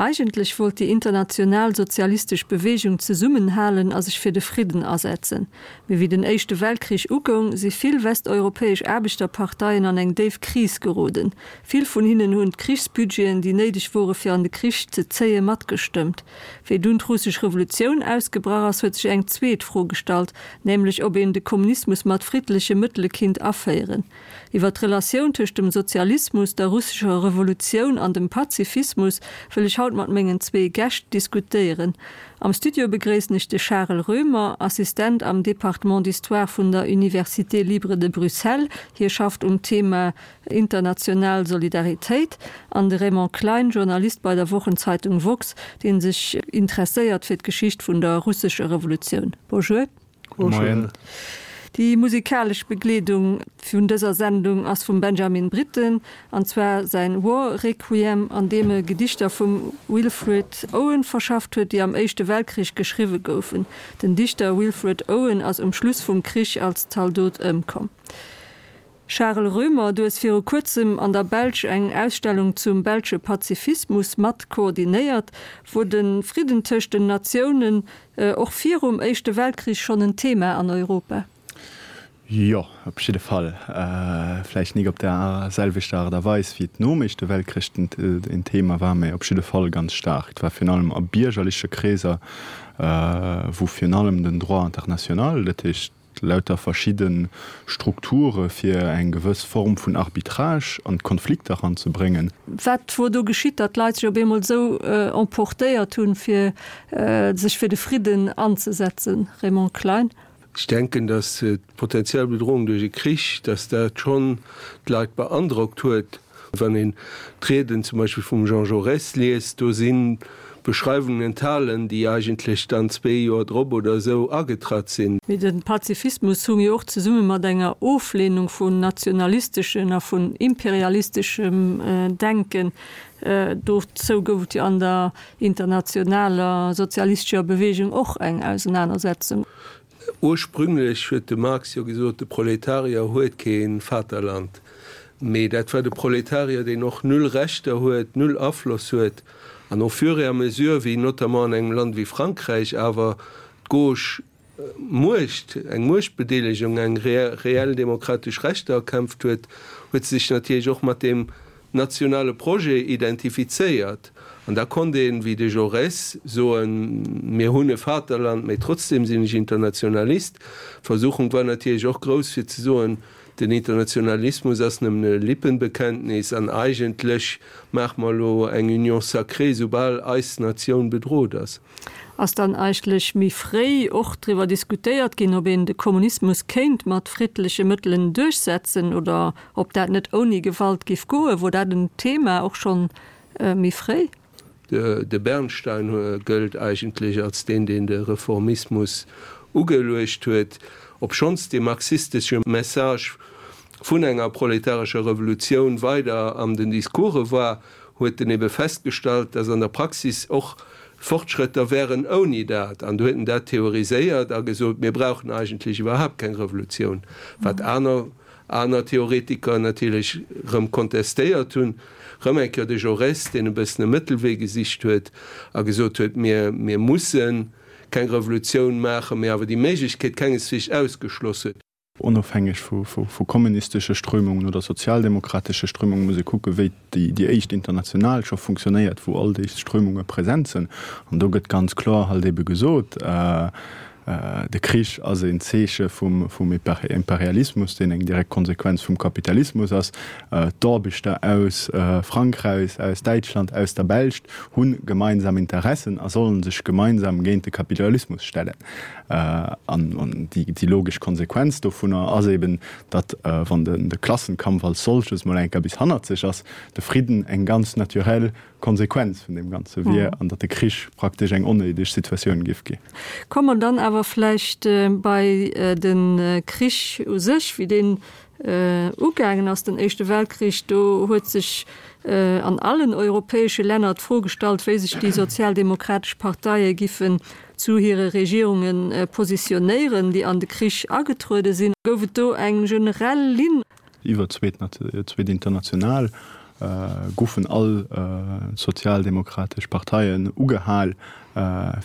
Eigentlech wollt déi international sozialistesch Beweegung zesummenhalen a sech fir de Fridden asetzen. Mee wéi den Éischte Weltkrich ugoung, si vill westeuropäesch Aarbechterparteien an eng déif Kris geroden. Vill vun hinnen hunn d'Krichsbudgeten, déi néideg wore fir an de Krich ze zéien, matgestëmmt. Wéi dunn d'russesch Revolutioun ausgebrach ass, huet sech eng zweet Fro gestallt, nämlech ob een de Kommunismus mat friddleche Mëttele kinnt aféieren. Iwwer d'Relatioun tëscht dem Sozialismus, der russescher Revolutioun an dem Pazifismus wëll ech haut mat mengen zwee Gäscht diskutéieren. Am Studio begréissen ech de Charel Roemer, Assistent am Département d'Histoire vun der Université libre de Bruxelles, hie schafft um Thema international Solidaritéit, an de Raymond Klein, Journalist bei der Wochenzeitung woxx, dee sech interesséiert fir d'Geschicht vun der russescher Revolutioun. Bonjour. Moien. Déi musikalesch Begleedung vun dëser Sendung ass vum Benjamin Britten, an zwar säin War Requiem, an deem e Gedichter vum Wilfred Owen verschafft huet, déi am Éischte Weltkrich geschriwwe goufen. Den Dichter Wilfred Owen ass um Schluss vum Krich als Zaldot ëmkomm. Charel Roemer, du hues viru kuerzem an der Belsch eng Ausstellung zum belsche Pazifismus mat koordinéiert. Wor de Fridden tëscht den Natiounen och virum Éischte Weltkrich schonn en Thema an Europa? Jo, op jidde Fall. Vläicht nik op der selwechter Aart a Weis, wéi et nom Éischte Weltkrich en Thema war, mä op jidde Fall ganz staark. Et war virun allem a biergerleche Kreeser, wou virun allem den Droit international, dat heescht, lauter verschidde Strukture fir eng gewëss Form vun Arbitrage an d'Konflikter eranzebréngen. Wat wor do geschitt, datt d'Leit sech op eemol esou emportéiert hunn, fir sech fir de Fridden anzesetzen? Raymond Klein. Ech denken, datt d'potenziell Bedrohung duerch e Krich, datt dat schonn d'Leit beandrockt huet. Wann een d'Rieden zum Beispill vum Jean Jaurès liest, do si Beschreiwungen enthalen, déi eigentlech dann zwee Joer drop oder esou agetratt sinn. Mee de Pazifismus hung jo och zesumme mat enger Oflehnung vun nationalisteschen a vun imperialisteschem Denken. Dozou gouf et jo an der internationaler sozialistescher Bewegung och eng Ausenanersetzung. Ursprünglech huet de Marx jo gesot, de Proletarier huet kee Vaterland. Mee dat war de Proletarier, deen och null Rechter huet, null Afloss huet. An au fur et à mesure, wéi notamment an engem Land wéi Frankräich awer d'Gauche Muecht, eng Muechtbedeelegung, eng reell demokratesch Rechter erkämpft huet, huet se sech natierlech och mat deem nationale Projet identifizéiert. An da konnt een, wéi de Jaurès, soen, mir hunn e Vaterland, mä trotzdem sinn ech Internationalist. D'Versuchung war natierlech och grouss fir ze soen, den Internationalismus ass nëmmen e Lippenbekenntnis an eigentlech maache mer elo eng Union sacrée, soubal eis Natioun bedrot ass. Ass dann eigentlech méi fréi och driwwer diskutéiert ginn, ob een de Kommunismus kéint mat friddleche Mëttelen duerchsetzen oder ob dat net ouni Gewalt giff goen? Wor dat en Thema och schonn méi fréi? De Bernstein gëllt eigentlech als deen, deen de Reformismus ugeluecht huet, obschonns dee marxistesche Message vun enger proletarescher Revolutioun weider an den Discourse war, huet en ebe festgestallt, dass an der Praxis och Fortschrëtter wären ouni dat. An du huet en dat theoriséiert a gesot, mir brauchen eigentlech iwwerhaapt keng Revolutioun, wat aner aner Theoretiker natierlech erëm kontestéiert hunn. Erëm eng Kéier de Jaurès, deen e bëssen e Mëttelwee gesicht huet a gesot huet, mir mir musse keng Revolutioun maachen, mee awer déi Méiglechkeet kengesweegs ausgeschloss huet. Onofhängeg vu kommunistesche Strömungen oder sozialdemokratesche Strömungen muss ee kucken, wéi déi éischt International scho funktionéiert, wou all déi Strömunge present sinn. An do gëtt ganz kloer halt ebe gesot, De Krich ass een Zeeche vum Imperialismus, deen eng direkt Konsequenz vum Kapitalismus ass. D'Aarbechter aus Frankräich, aus Däitschland, aus der Belscht hu gemeinsam Interessen a sollen sech gemeinsam géint de Kapitalismus stellen. An déi logesch Konsequenz dovunner ass eben, datt, wann de Klassenkampf als solches mol eng Kéier bis hannerzeg ass, de Fridden eng ganz naturell Konsequenz vun deem Ganze wier an datt de Krich praktesch eng onnéideg Situatioun géif ginn. Komme mer dann awer vläicht bei de Krich u sech, wéi deen ugaangen ass, den Éischte Weltkrich. Do huet sech an allen europäesche Länner d'Fro gestallt, wéi sech déi sozialdemokratesch Parteie giffen zu hire Regierunge positionéieren, déi an de Krich agetruede sinn. Gouf et do eng generell Linn? Iwwer d'zweet International. goufen all sozialdemokratesch Parteien ugehal,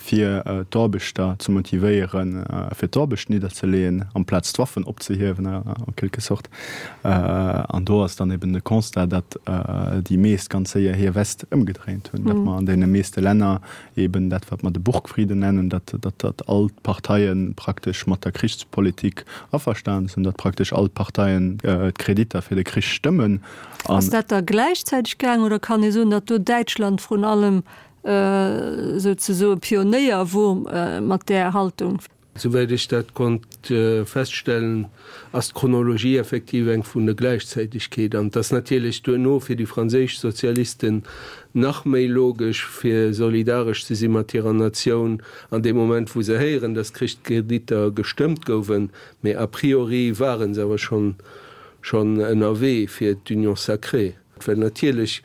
fir d'Aarbechter ze motivéieren, fir d'Aarbecht nidderzeleeën, amplaz d'Waffen opzehiewen en quelque sorte. An do ass dann eben de Constat, datt déi meescht ganz séier hir West ëmgedréint hunn, datt mer an deene meeschte Länner eben dat wat mer de Burgfrieden nennen, datt datt all d'Parteie praktesch mat der Krichspolitik averstanen sinn, datt praktesch all d'Parteien d'Kreditter fir de Krich stëmmen. Ass dat da gläichzäiteg gaang oder kann ee soen, datt do Däitschland vrun allem souzesoe Pionéier wor mat där Haltung? Souwäit ech dat konnt feststellen, ass d'Chronologie effektiv eng vun der Gläichzäitegkeet. An et ass natierlech duerno fir déi franséisch Sozialisten nach méi logesch, fir solidaresch ze si mat hirer Natioun an deem Moment, wou se héieren, datt d'Krichskreditter gestëmmt gouwen. Mee a priori ware se awer schonn schonn ënnerwee fir d'Union sacrée. Well natierlech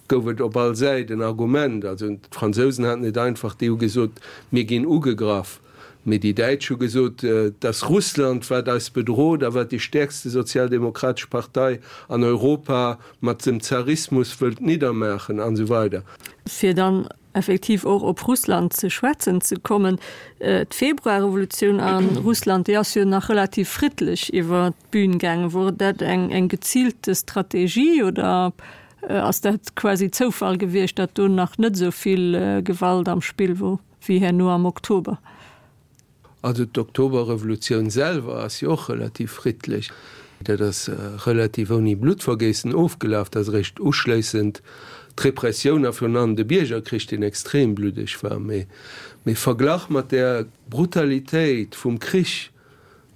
gouf et op all Säit en Argument. Also d'Fransousen haten et einfach, déi hu gesot, mir ginn ugegraff. Mee déi Däitsch hu gesot, et ass Russland, wat eis bedrot a wat déi stäerkste sozialdemokratesch Partei an Europa mat dem Zarismus wëllt niddermaachen an esou weider. Fir dann effektiv och op Russland ze schwätzen ze kommen, D'Februarrevolutioun a Russland, déi ass jo nach relativ friddlech iwwer d'Bün gaangen. Wor dat eng geziilte Strategie oder Ass dat quasi Zoufall gewiescht, datt do nach net esou vill Gewalt am Spill wor wéi herno am Oktober? Also d'Oktoberrevolutioun selwer ass jo och relativ friddlech. Dat ass relativ ouni Bluttvergéissen ofgelaf. Dat ass eréischt uschléissend d'Repressioun a virun allem de Biergerkrich, deen extrem bluddeg war. Mee verglach mat där Brutalitéit vum Krich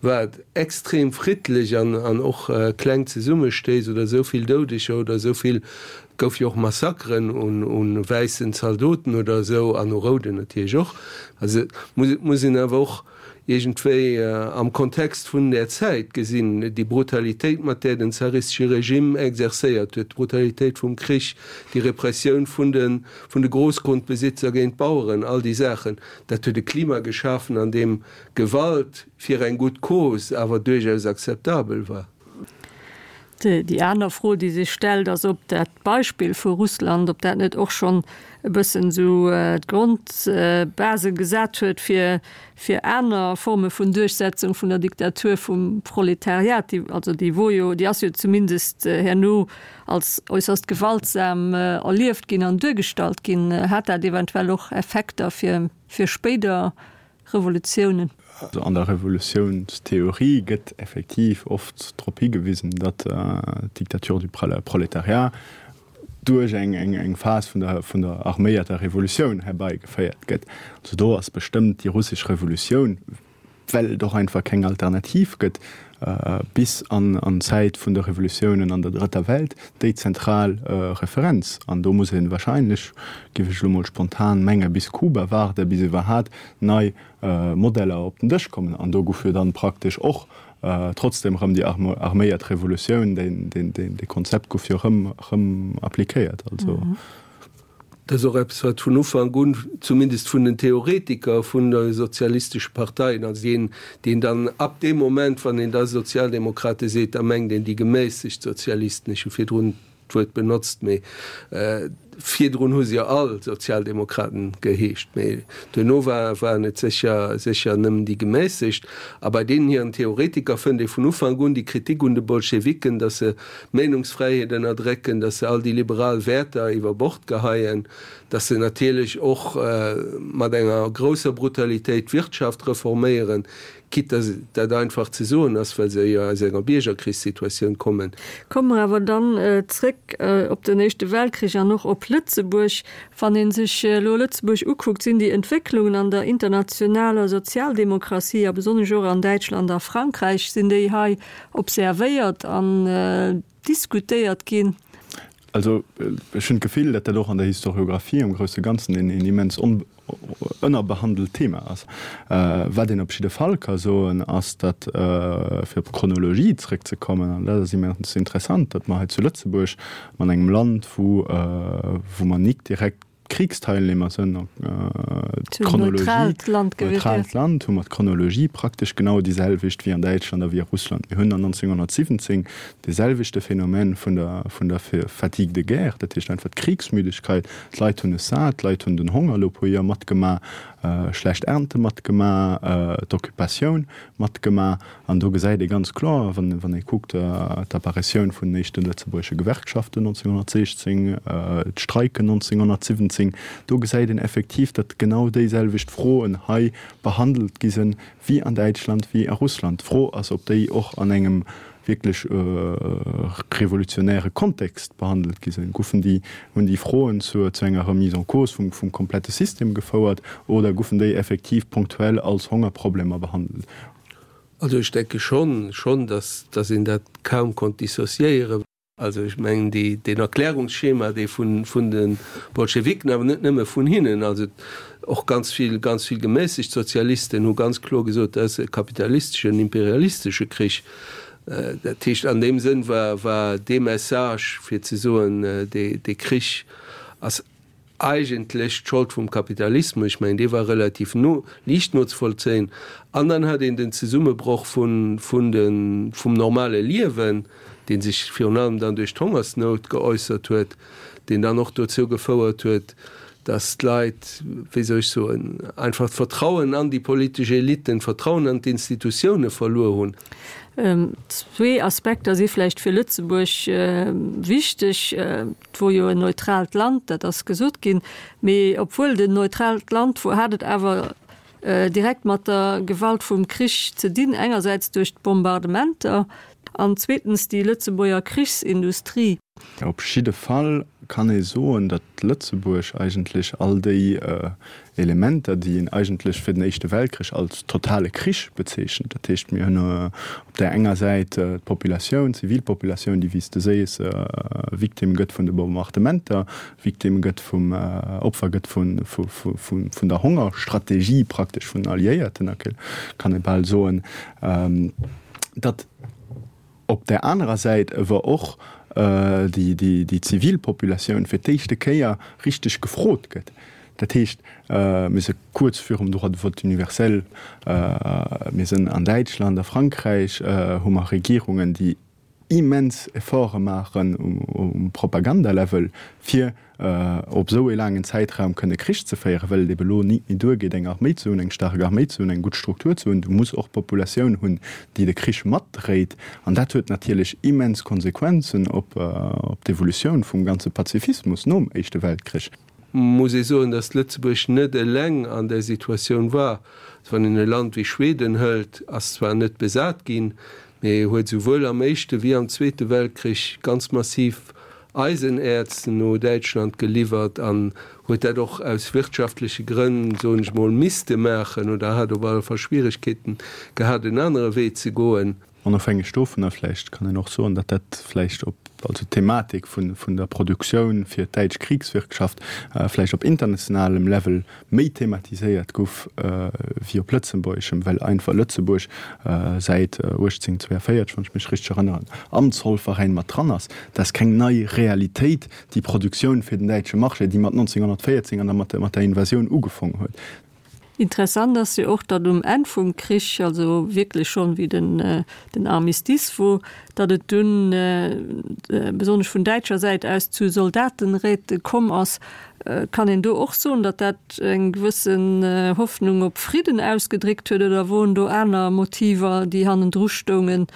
Wat extrem friddlech an an och kleng Zesummestéiss oder esou vill Doudeger oder esou vill, et gouf jo och Massakeren un un wäissen Zaldoten oder esou an u rouden natierlech och. Also et muss et muss een awer och iergendwéi am Kontext vun där Zäit gesinn, déi Brutalitéit mat där den zaristesche Regime exercéiert huet, d'Brutalitéit vum Krich, déi Repressioun vun de vun de Großgrundbesitzer géint d'Baueren, all déi Saachen, dat huet e Klima geschafen an deem Gewalt fir eng gutt Cause awer duerchaus akzeptabel war. Déi aner Fro, déi sech stellt, ass, ob dat Beispill vu Russland, ob dat net och schonn e bëssen esou d'Grondbase gesat huet fir, fir aner Forme vun Duerchsetzung vun der Diktatur vum Proletariat, déi, also déi wor jo, déi ass jo zumindest herno als äusserst gewaltsam erlieft ginn an duergestallt ginn. Hat dat eventuell och Effekter fir, fir spéider Revolutiounen. Also an der Revolutiounstheorie gëtt effektiv oft drop higewisen, datt d'Dictature du prolétariat duerch eng Phas vun der vun der arméierter Revolutioun herbeigeféiert gëtt. Also do ass bestëmmt déi russesch Revolutioun, well et och einfach keng Alternativ gëtt, bis an d'Zäit vun de Revolutiounen an der Drëtter Welt déi zentral Referenz. An do muss ee wahrscheinlech, géif ech elo mol spontan mengen, bis Kuba waarden, bis iwwerhat nei Modeller op den Dësch kommen. An do gouf jo dann praktesch och trotzdem erëm déi arméiert Revolutioun, dee Konzept gouf jo erëm appliquéiert. Also. Dat ass och eppes, wat vun Ufank un, zumindest vun den Theoretiker vun de sozialistesche Parteien, also deen, deen dann ab deem Moment, wann een da Sozialdemokrate seet, da mengt een déi gemässegt Sozialisten, ech hu virdrun d'Wuert benotzt, mee virdrun hu se jo all Sozialdemokraten geheescht, mee duerno war, waren et sécher, sécher nëmmen déi gemässegt. A bei deenen hiren Theoretiker fënnt ee vun Ufank un déi Kritik un de Bolschewiken, datt se d'Meenungsfräiheet ënnerdrécken, datt se all déi liberal Wäerter iwwer Bord geheien, datt se natierlech och mat enger grousser Brutalitéit d'Wirtschaft reforméieren, quitte datt dat einfach ze soen ass, well se jo aus enger Biergerkrichssituatioun kommen. Komme mer awer dann zréck op den Éischte Weltkrich an och op Lëtzebuerg. Wann ee sech elo Lëtzebuerg ukuckt, sinn déi Entwécklungen an der internationaler Sozialdemokratie a besonnesch och an Däitschland a Frankräich, sinn déi hei observéiert an diskutéiert ginn. Also ech hunn d'Gefill, datt dat och an der Historiographie am grousse Ganzen een immens ënnerbehandelt Thema ass. Wat een op jidde Fall ka soen, ass, datt, fir op d'Chronologie zrëckzekommen, an dat ass immens interessant, datt mer hei zu Lëtzebuerg, an engem Land, wou mer nik direkt. Kriegsteilnehmer sënn, d'Chronologie, neutraalt Land, hu mer d'Chronologie praktesch genau déi selwecht wéi an Däitschland a wéi a Russland. Mir hunn an 1917 dee selwechte Phänomen vun der, vun der Fatigue de guerre, dat heescht einfach d'Kriegsmüdigkeit, d'Leit hunn es sat, d'Leit hunn den Honger elo e puer Joer matgemaach, schlecht Ernte matgemaach, d'Occupatioun matgemaach. An do gesäit ee ganz kloer, wann ee kuckt, d'Apparitioun vun den éischte lëtzebuergesche Gewerkschaften 1916, d'Streiken 1917, do gesäit een effektiv, datt genau déiselwecht Froen hei behandelt gi sinn, wéi an Däitschland, wéi a Russland. D'Fro ass, ob déi och an engem wierklech revolutionäre Kontext behandelt gi sinn. Goufen déi, hunn déi Froen zu enger Remise en cause vum komplette System gefouert oder goufen déi effektiv ponktuell als Hongerproblemer behandelt? Also ech denke schonn, schonn, dass, dass een dat kaum konnt dissociéieren. Also ech mengen, déi, deen Erklärungsschema, dee vun, vun de Bolschewiken, awer net nëmme vun hinnen, also och ganz vill, ganz vill gemässegt Sozialisten hu ganz kloer gesot, dat ass e kapitalisteschen, imperialistesche Krich. Dat heescht, an deem Sënn war, war dee Message, fir ze soen, dee, dee Krich ass eigentlech d'Schold vum Kapitalismus, ech mengen, dee war relativ no, liicht nozevollzéien. An dann hat een den Zesummebroch vun, vun de, vum normale Liewen, dee sech virun allem dann duerch d'Hongersnout geäussert huet, deen dann och dozou gefouert huet, datt d'Leit, wéi soll ech soen, einfach d'Vertrauen an déi politesch Eliten, d'Vertrauen an d'Institutioune verluer hunn. Zwee Aspekter si vläicht fir Lëtzebuerg wichteg. Et wor jo en neutraalt Land, dat ass gesot ginn. Mee obwuel et en neutraalt Land wor, hat et awer direkt mat der Gewalt vum Krich ze dinn, engersäits duerch d'Bombardementer an zweetens déi Lëtzebuerger Krichsindustrie. Op jidde Fall kann ee soen, datt Lëtzebuerg eigentlech all déi Elementer, déi een eigentlech fir den Éischte Weltkrich als totale Krich bezeechent. Dat heescht, mir hunn op där enger Säit d'Populatioun, d'Zivilpopulatioun, déi, wéi s de sees, Victime gëtt vun de Bombardementer, Victime gëtt vum, Opfer gëtt vun der Hongerstrategie praktesch vun den Alliéierten, kann ee bal soen, datt, Op där anerer Säit ewer och déi zivil Populatioun fir d'éischte Kéier richteg gefrot gëtt. Dat heescht, mir si kuerz virum Droit de vote universel, mir sinn an Däitschland, a Frankräich hu mer Regierungen, déi immens Efforte maachen um Propagandalevel, fir op esou ee laangen Zäitraum kënne Krich ze féieren, well et ebe lo nit méi duergeet, eng Arméi ze hunn, eng staark Arméi ze hunn, eng gutt Struktur ze hunn. Du muss och d'Populatioun hunn, déi de Krich matdréit. An dat huet natierlech immens Konsequenzen op d'Evolutioun vum ganze Pazifismus nom Éischte Weltkrich. Muss ee soen, datt Lëtzebuerg net eleng an där Situatioun war. Also wann een e Land wéi Schweden hëlt, ass zwar net besat ginn, mee huet souwuel am Éischte wéi am Zweete Weltkrich ganz massiv Eisenäerz no Däitschland geliwwert an huet dat och aus wirtschaftleche Grënn, soen ech mol, misste maachen oder hat op alle Fall Schwieregkeeten gehat, en anere Wee ze goen. Onofhängeg dovunner vläicht kann een och soen, datt dat vläicht op, also d'Thematik vun, vun der Produktioun fir d'däitsch Kriegswirtschaft vläicht op internationalem Level méi thematiséiert gouf wéi op lëtzebuergeschem, well einfach Lëtzebuerg säit 1842, wann ech mech richteg erënneren, am Zollveräin mat dran ass. Dat ass keng nei Realitéit, déi Produktioun fir den däitsche Marché, déi mat 1914 an da mat der Invasioun ugefong huet. Interessant ass jo och, datt um Enn vum Krich, also wierklech schonn wéi den Armistice wor, datt et dunn besonnesch vun däitscher Säit aus zu Soldatenräte komm ass. Kann een do och soen, datt dat eng gewëssen Hoffnung op Fridden ausgedréckt huet, oder woren do aner Motiver, déi hannendru stoungen,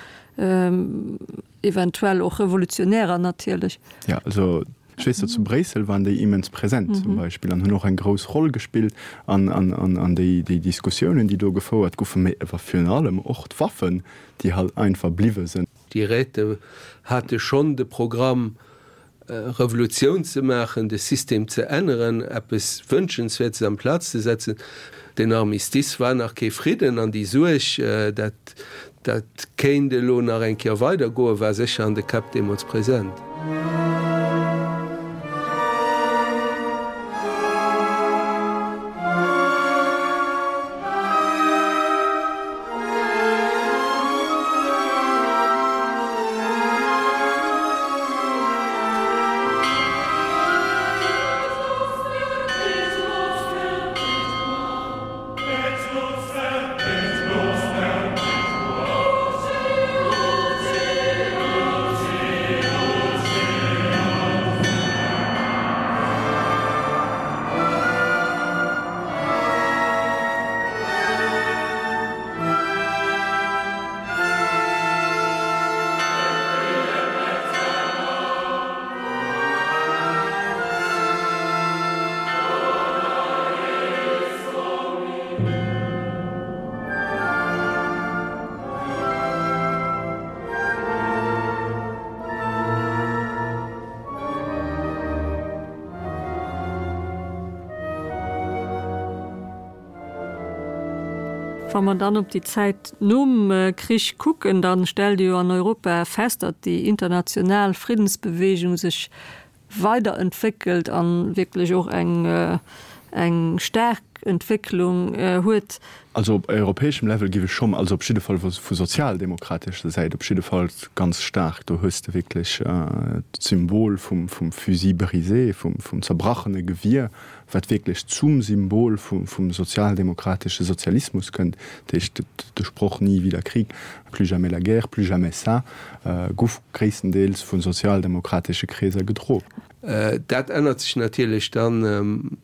eventuell och revolutionärer natierlech? Jo, also ech weess, datt zu Bréissel waren déi immens present zum Beispill an hunn och eng grouss Roll gespillt an an déi Diskussiounen, déi do gefouert goufen, mä awer virun allem och d'Waffen, déi halt einfach bliwwe sinn. Déi Räte hate schonn de Programm, Revolutioun ze maachen, de System ze änneren, eppes Wënschenswäertes amplaz ze setzen. Den Armistice war nach kee Fridden an déi Suerg, dat dat kéint elo nach eng Kéier weidergoen, war sécher an de Käpp deemools present. Wa mer dann op déi Zäit nom Krich kucken, da stellt ee jo an Europa fest, datt déi international Friddensbewegung sech weiderentwéckelt a wierklech och eng eng staark Entwécklung huet. Also op europäeschem Level géif ech schonn, also op jidde Fall vu sozialdemokratescher Säit op jidde Fall ganz staark, do hues de wierklech d'Symbol vum Fusil brisé, vum zerbrachene Gewier, wat wierklech zum Symbol vum sozialdemokratesche Sozialismus kënnt, dat heescht de Sproch Nie wieder Krieg, plus jamais la guerre, plus jamais ça, guff gréisstendeels vu sozialdemokratesche Kreeser gedro. Dat ännert sech natierlech dann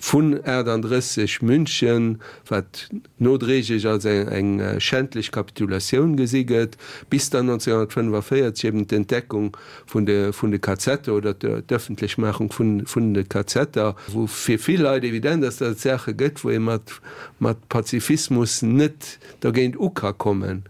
vun 38 München, wat nodréiglech als eng schändlech Kapitulatioun gesi gëtt, bis dann 1945 eben d'Entdeckung vun de vun de Kazetter oder d'Ëffentlechmaachung vun vun de Kazetter, wou fir vill Leit evident ass, datt et Saache gëtt, wou ee mat mat Pazifismus net dergéint u ka kommen.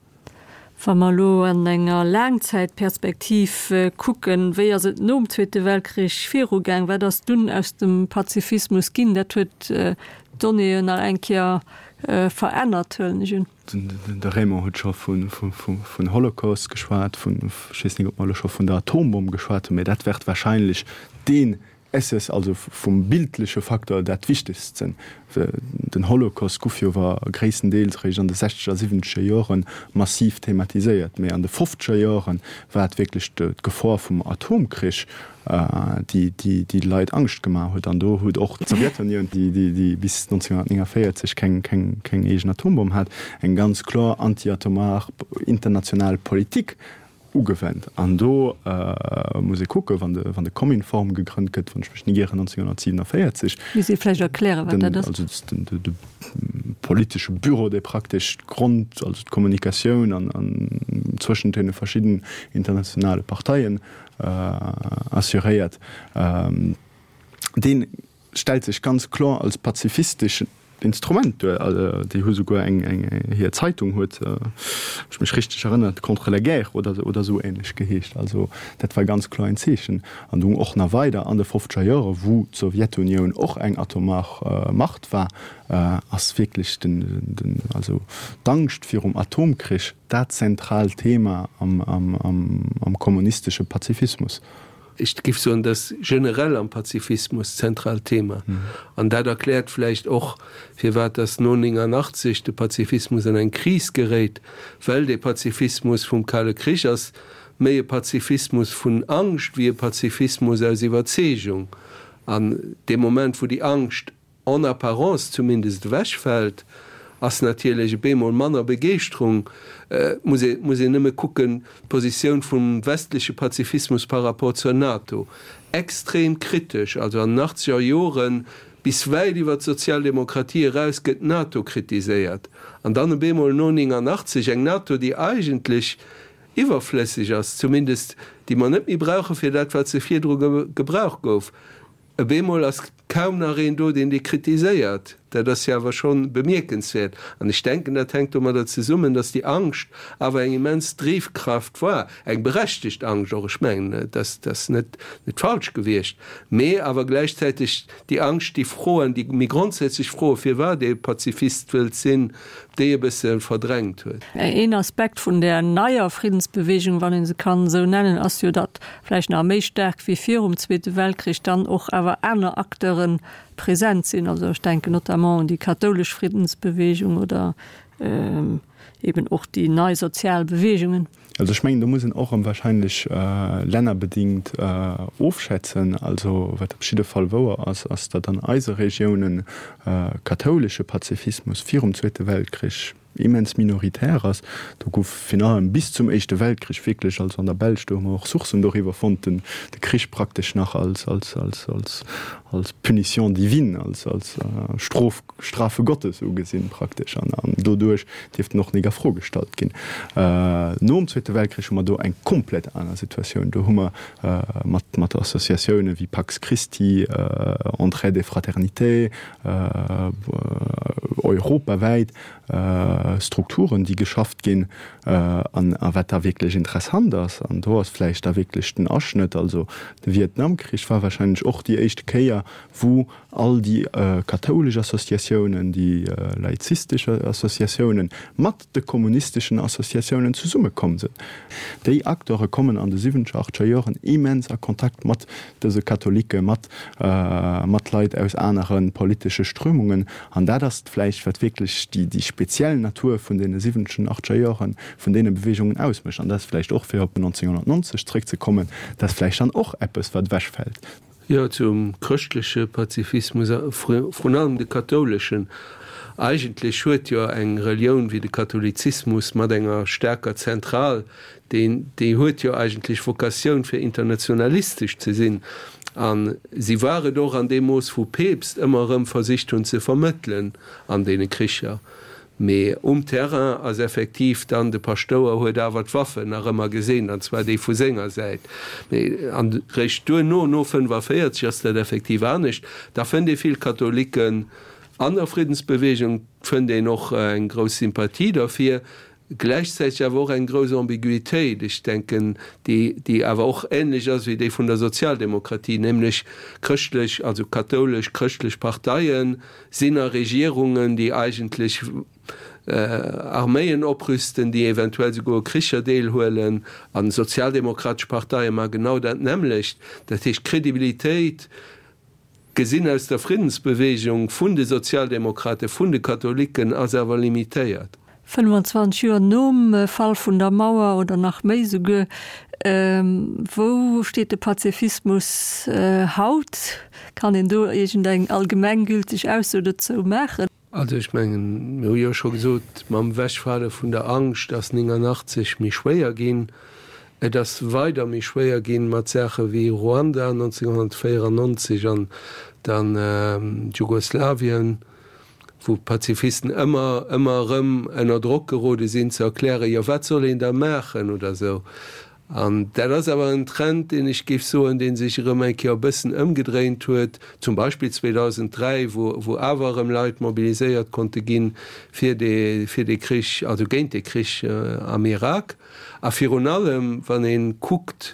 Wa mer elo an enger Laangzäitperspektiv kucken, wéi ass et nom Zweete Weltkrich virugaang? Wat ass dunn aus dem Pazifismus ginn? Dat huet d'Donnéeën nach eng Kéier verännert, huelen ech un. De Raymond huet scho vun Holocaust geschwat, vun, ech weess net, ob mer elo scho vun der Atombomm geschwat hunn, mä dat wäert wahrscheinlech deen Esses, also vum bildleche Facteur dat Wichtegst sinn. Den Holocaust guff jo awer gréisstendeels eréischt an de sechzeger, siwwenzeger Jore massiv thematiséiert, mä an de fofzeger Jore war et wierklech d'Gefor vum Atomkrich, déi déi Leit Angscht gemaach huet. An do huet och d'Sowjetunioun, déi bis 1949 keng eegen Atombomm hat, eng ganz kloer antiatomar international Politik ugewennt. An do muss ee kucken, wann de Kominform gegrënnt gëtt, wann ech mech net ieren, 1947. Misst ee vläicht erklären, wat dat ass. Also de politesche Büro, dee praktesch d'Grond, also d'Kommunikatioun an zwëschent deene verschidden internationale Parteien assuréiert, dee stellt sech ganz kloer als pazifisteschen Instrument duer. Déi hu souguer eng, hir Zeitung huet, wann ech mech richteg erënnert, Contre la guerre oder oder esou ähnlech geheescht. Also dat war ganz kloer en Zeechen. An dunn och nach weider an de fofzeger Jore, wou d'Sowjetunioun och eng atomar Macht war, ass wierklech den, den, also d'Angscht virum Atomkrich dat zentraalt Thema am kommunistesche Pazifismus. Ech géif soen, dat ass generell am Pazifismus d'zentraalt Thema. An dat erkläert vläicht och, firwat dass no 89 de Pazifismus an eng Kris geréit, well dee Pazifismus vum Kale Krich ass méi e Pazifismus vun Angscht wéi e Pazifismus aus Iwwerzeegung. An dee Moment, wou déi Angscht en apparence zumindest ewechfält, ass natierlech e bemol manner Begeeschterung. Et muss ee muss een nëmme kucken, d'Positioun vum westleche Pazifismus par rapport zur NATO, extrem kritesch, also an den achtzeger Joren bis wäit iwwer d'Sozialdemokratie eraus gëtt d'NATO kritiséiert, an dann e bemol no 89 eng NATO, déi eigentlech iwwerflësseg ass, zumindest déi mer net méi brauche fir dat wat se virdru gebraucht gouf. E bemol ass kaum nach een do, deen déi kritiséiert. Dat ass jo awer scho bemierkenswäert. An ech denken, dat hänkt domadder zesummen, datt déi Angscht awer eng immens Drivkraft war, eng berechtegt Angscht och, ech mengen, dat ass net falsch gewiescht, mee awer gläichzäiteg déi Angscht, déi Froen, déi méi grondsätzlech Froen, firwat ee Pazifist wëllt sinn, déi e bësse verdrängt huet. Een Aspekt vun där neier Friddensbewegung, wann ee se kann esou nennen, ass jo, datt vläicht nach méi staark wéi virum Zweete Weltkrich dann och awer aner Acteure present sinn. Also ech denken notamment un déi kathoulesch Friddensbewegung oder eben och déi nei sozial Bewegungen. Also ech mengen, do muss een och erëm wahrscheinlech lännerbedingt ofschätzen. Also wat op jidde Fall wouer ass, ass, datt an eise Regiounen kathoulesche Pazifismus virum Zweete Weltkrich immens minoritär ass. Do gouf virun allem bis zum Éischte Weltkrich wierklech, also an der Belsch, do hu mer och Sourcen doriwwer fonnt, den de Krich praktesch nach als, als, als, als, als Punition divine, als, als Strof, Strafe Gottes ugesinn praktesch an an doduerch dierft en och nik a Fro gestallt ginn. Nom Zweete Weltkrich hu mer do eng komplett aner Situatioun. Do hu mer mat mat Associatioune wéi Pax Christi, Entraide et Fraternité, europawäit. Strukturen, déi geschafft ginn. An a wat da wierklech interessant ass, an do ass vläicht da wierklech den Aschnëtt, also de Vietnamkrich war wahrscheinlech och déi éischte Kéier, wou all déi kathoulesch Associatiounen, déi laizistesch Associatiounen mat de kommunisteschen Associatiounen zesummekomm sinn. Déi Acteure kommen an de siwwenzeger, achtscher Joren immens a Kontakt mat dëse Katholike, mat mat Leit aus anere politesche Strömungen. An dat ass vläicht, wat wierklech déi déi speziell Natur vun deene siwwenzegen, achtscher Jore vun deene Beweegungen ausmécht. An dat ass vläicht och, fir op 1990 zréckzekommen, dat ass vläicht dann och eppes, wat ewechfält. Jo, zum chrëschtleche Pazifismus, a vrun allem de kathouleschen. Eigentlech huet jo eng Relioun wéi de Katholizismus mat enger staarker Zentral, deen, déi huet jo eigentlech Vokatioun fir internationalistesch ze sinn. A si war et och an deem Mooss wou Peepst ëmmer erëm versicht hunn ze vermëttelen an deene Kricher. Mee um Terrain ass effektiv dann, de Paschtouer huet awer d'Waffen nach ëmmer gesinn, an zwar déi vu senger Säit. Mee an réischt duerno, no 45, ass dat effektiv anescht. Da fënnt ee vill Katholiken an der Friddensbewegung, fënnt een och eng grouss Sympathie derfir, gläichzäiteg awer och eng grouss Ambiguitéit, ech denken, déi, déi awer och ähnlech ass wéi déi vun der Sozialdemokratie, nämlech chrëschtlech, also kathoulesch chrëschtlech Parteien sinn a Regierungen, déi eigentlech Arméien oprüsten, déi eventuell souguer u Kricher deelhuelen, a sozialdemokratesch Parteie maache genau dat nämmlecht. Dat heescht, d'Credibilitéit gesinn aus der Friddensbewegung vun de Sozialdemokraten, vun de Katholiken ass awer limitéiert. 25 Joer nom Fall vun der Mauer oder nach méi souguer, wou steet de Pazifismus haut? Kann een do iergendeng allgemenggülteg Ausso dozou maachen? Also ech mengen, mir hu jo scho gesot, mam Ewechfale vun der Angscht ass 89 méi schwéier ginn. Et ass weider méi schwéier ginn mat Saache wéi Ruanda 1994 an dann Jugoslawien, wou d'Pazifisten ëmmer, ëmmer erëm ënner Drock gerode sinn ze erklären, jo wat soll een da maachen oder esou. An dat ass awer en Trend, deen ech géif soen, dee sech erëm eng Kéier e bëssen ëmgedréint huet, zum Beispill 2003, wou, wou awer erëm Leit mobiliséiert konnte ginn fir dee, fir dee Krich, also géint dee Krich am Irak. A virun allem, wann ee kuckt,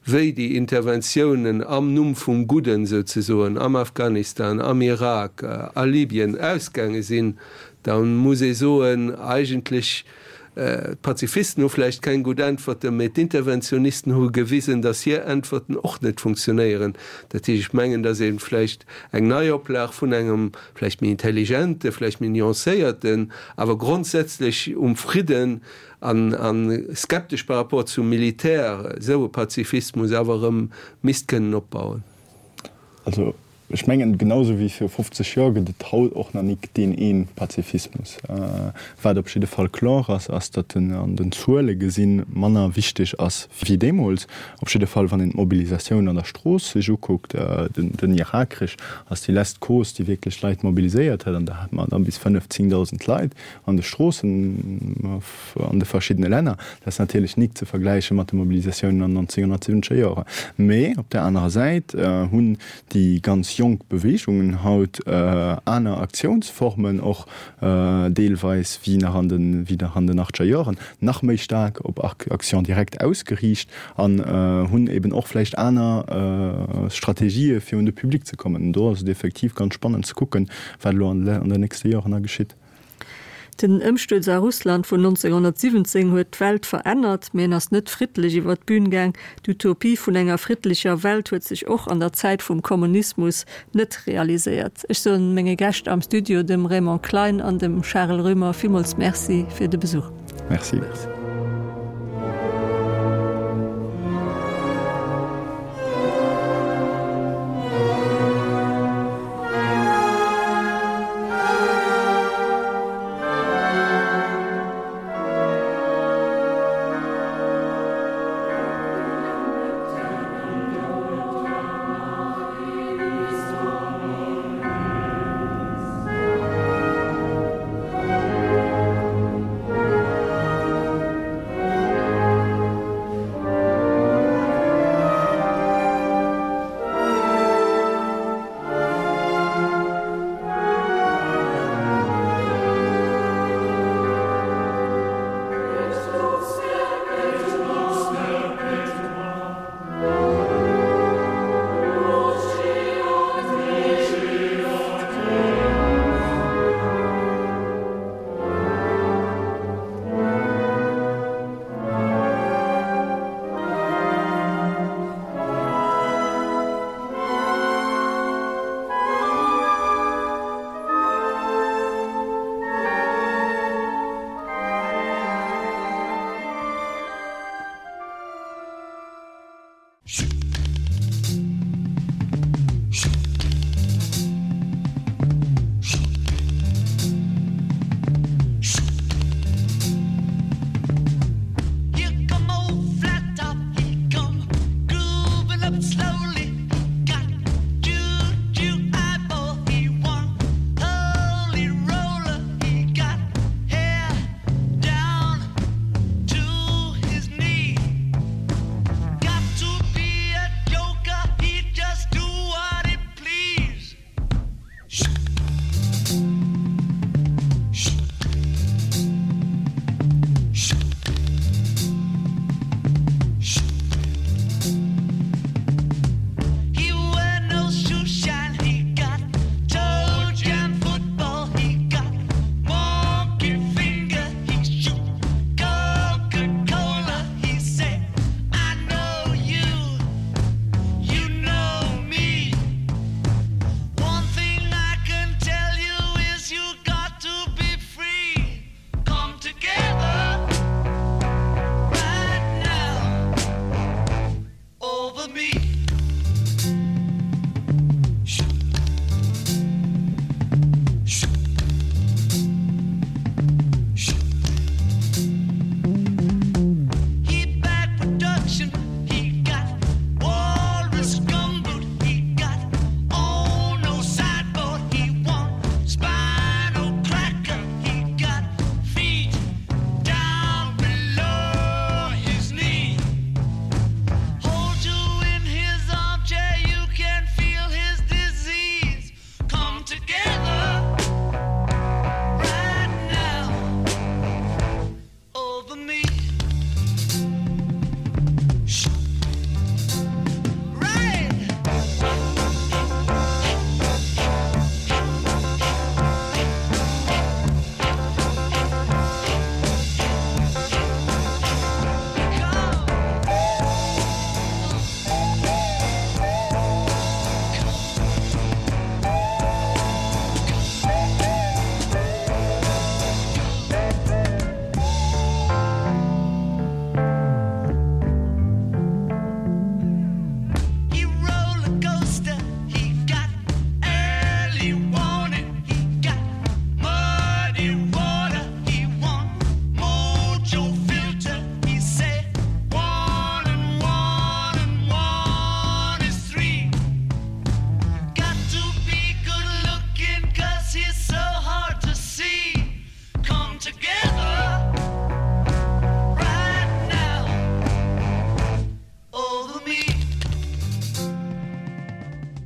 wéi déi Interventiounen am Numm vum Gudden souzesoen am Afghanistan, am Irak, a Libyen ausgaange sinn, da muss ee soen, eigentlech, D'Pazifisten hu vläicht keng gutt Äntwerten, mee d'Interventionisten hu gewisen, datt hir Äntwerten och net funktionéieren. Dat heescht, ech mengen, datt ee vläicht eng Neioplag vun engem vläicht méi intelligente, vläicht méi nuancéierten, awer grondsätzlech um Fridden an a skeptesch par rapport zum Militär, esou e Pazifismus awer erëm misst kënnen opbauen. Also Ech mengen, genau esou wéi viru 50 Joer gëtt et haut och nach nik deen een Pazifismus. Wat op jidde Fall kloer ass, ass, datt en an den Zuele gesinn manner wichteg ass wéi deemools. Op jidde Fall, wann een d'Mobilisatioun an der Strooss sech ukuckt. Den Irakkrich ass déi lesst Cause, déi wierklech Leit mobiliséiert huet, an do hate mer da bis 5, 10.000 Leit an de Stroossen. an de verschiddene Länner. Dat ass natierlech nik ze vergläiche mat de Mobilisatiounen an den 1970er Joren. Mee op där anerer Säit hunn déi ganz jonk Beweegungen haut aner Aktiounsformen och deelweis wéi nach an de wéi nach an den achtzeger Joren, nach méi staark op Action directe ausgeriicht an hunn eben och vläicht aner Strategië fir un de Public ze kommen. Do ass et effektiv ganz spannend ze kucken, wat elo an den nächste Joren da geschitt. Den Ëmstuerz a Russland vun 1917 huet d'Welt verännert, mee en ass net friddlech iwwer d'Bün gaang. D'Utopie vun enger friddlecher Welt huet sech och an der Zäit vum Kommunismus net realiséiert. Ech soen menge Gäscht am Studio, dem Raymond Klein an dem Charel Roemer, villmools Merci fir de Besuch. Merci. He back production.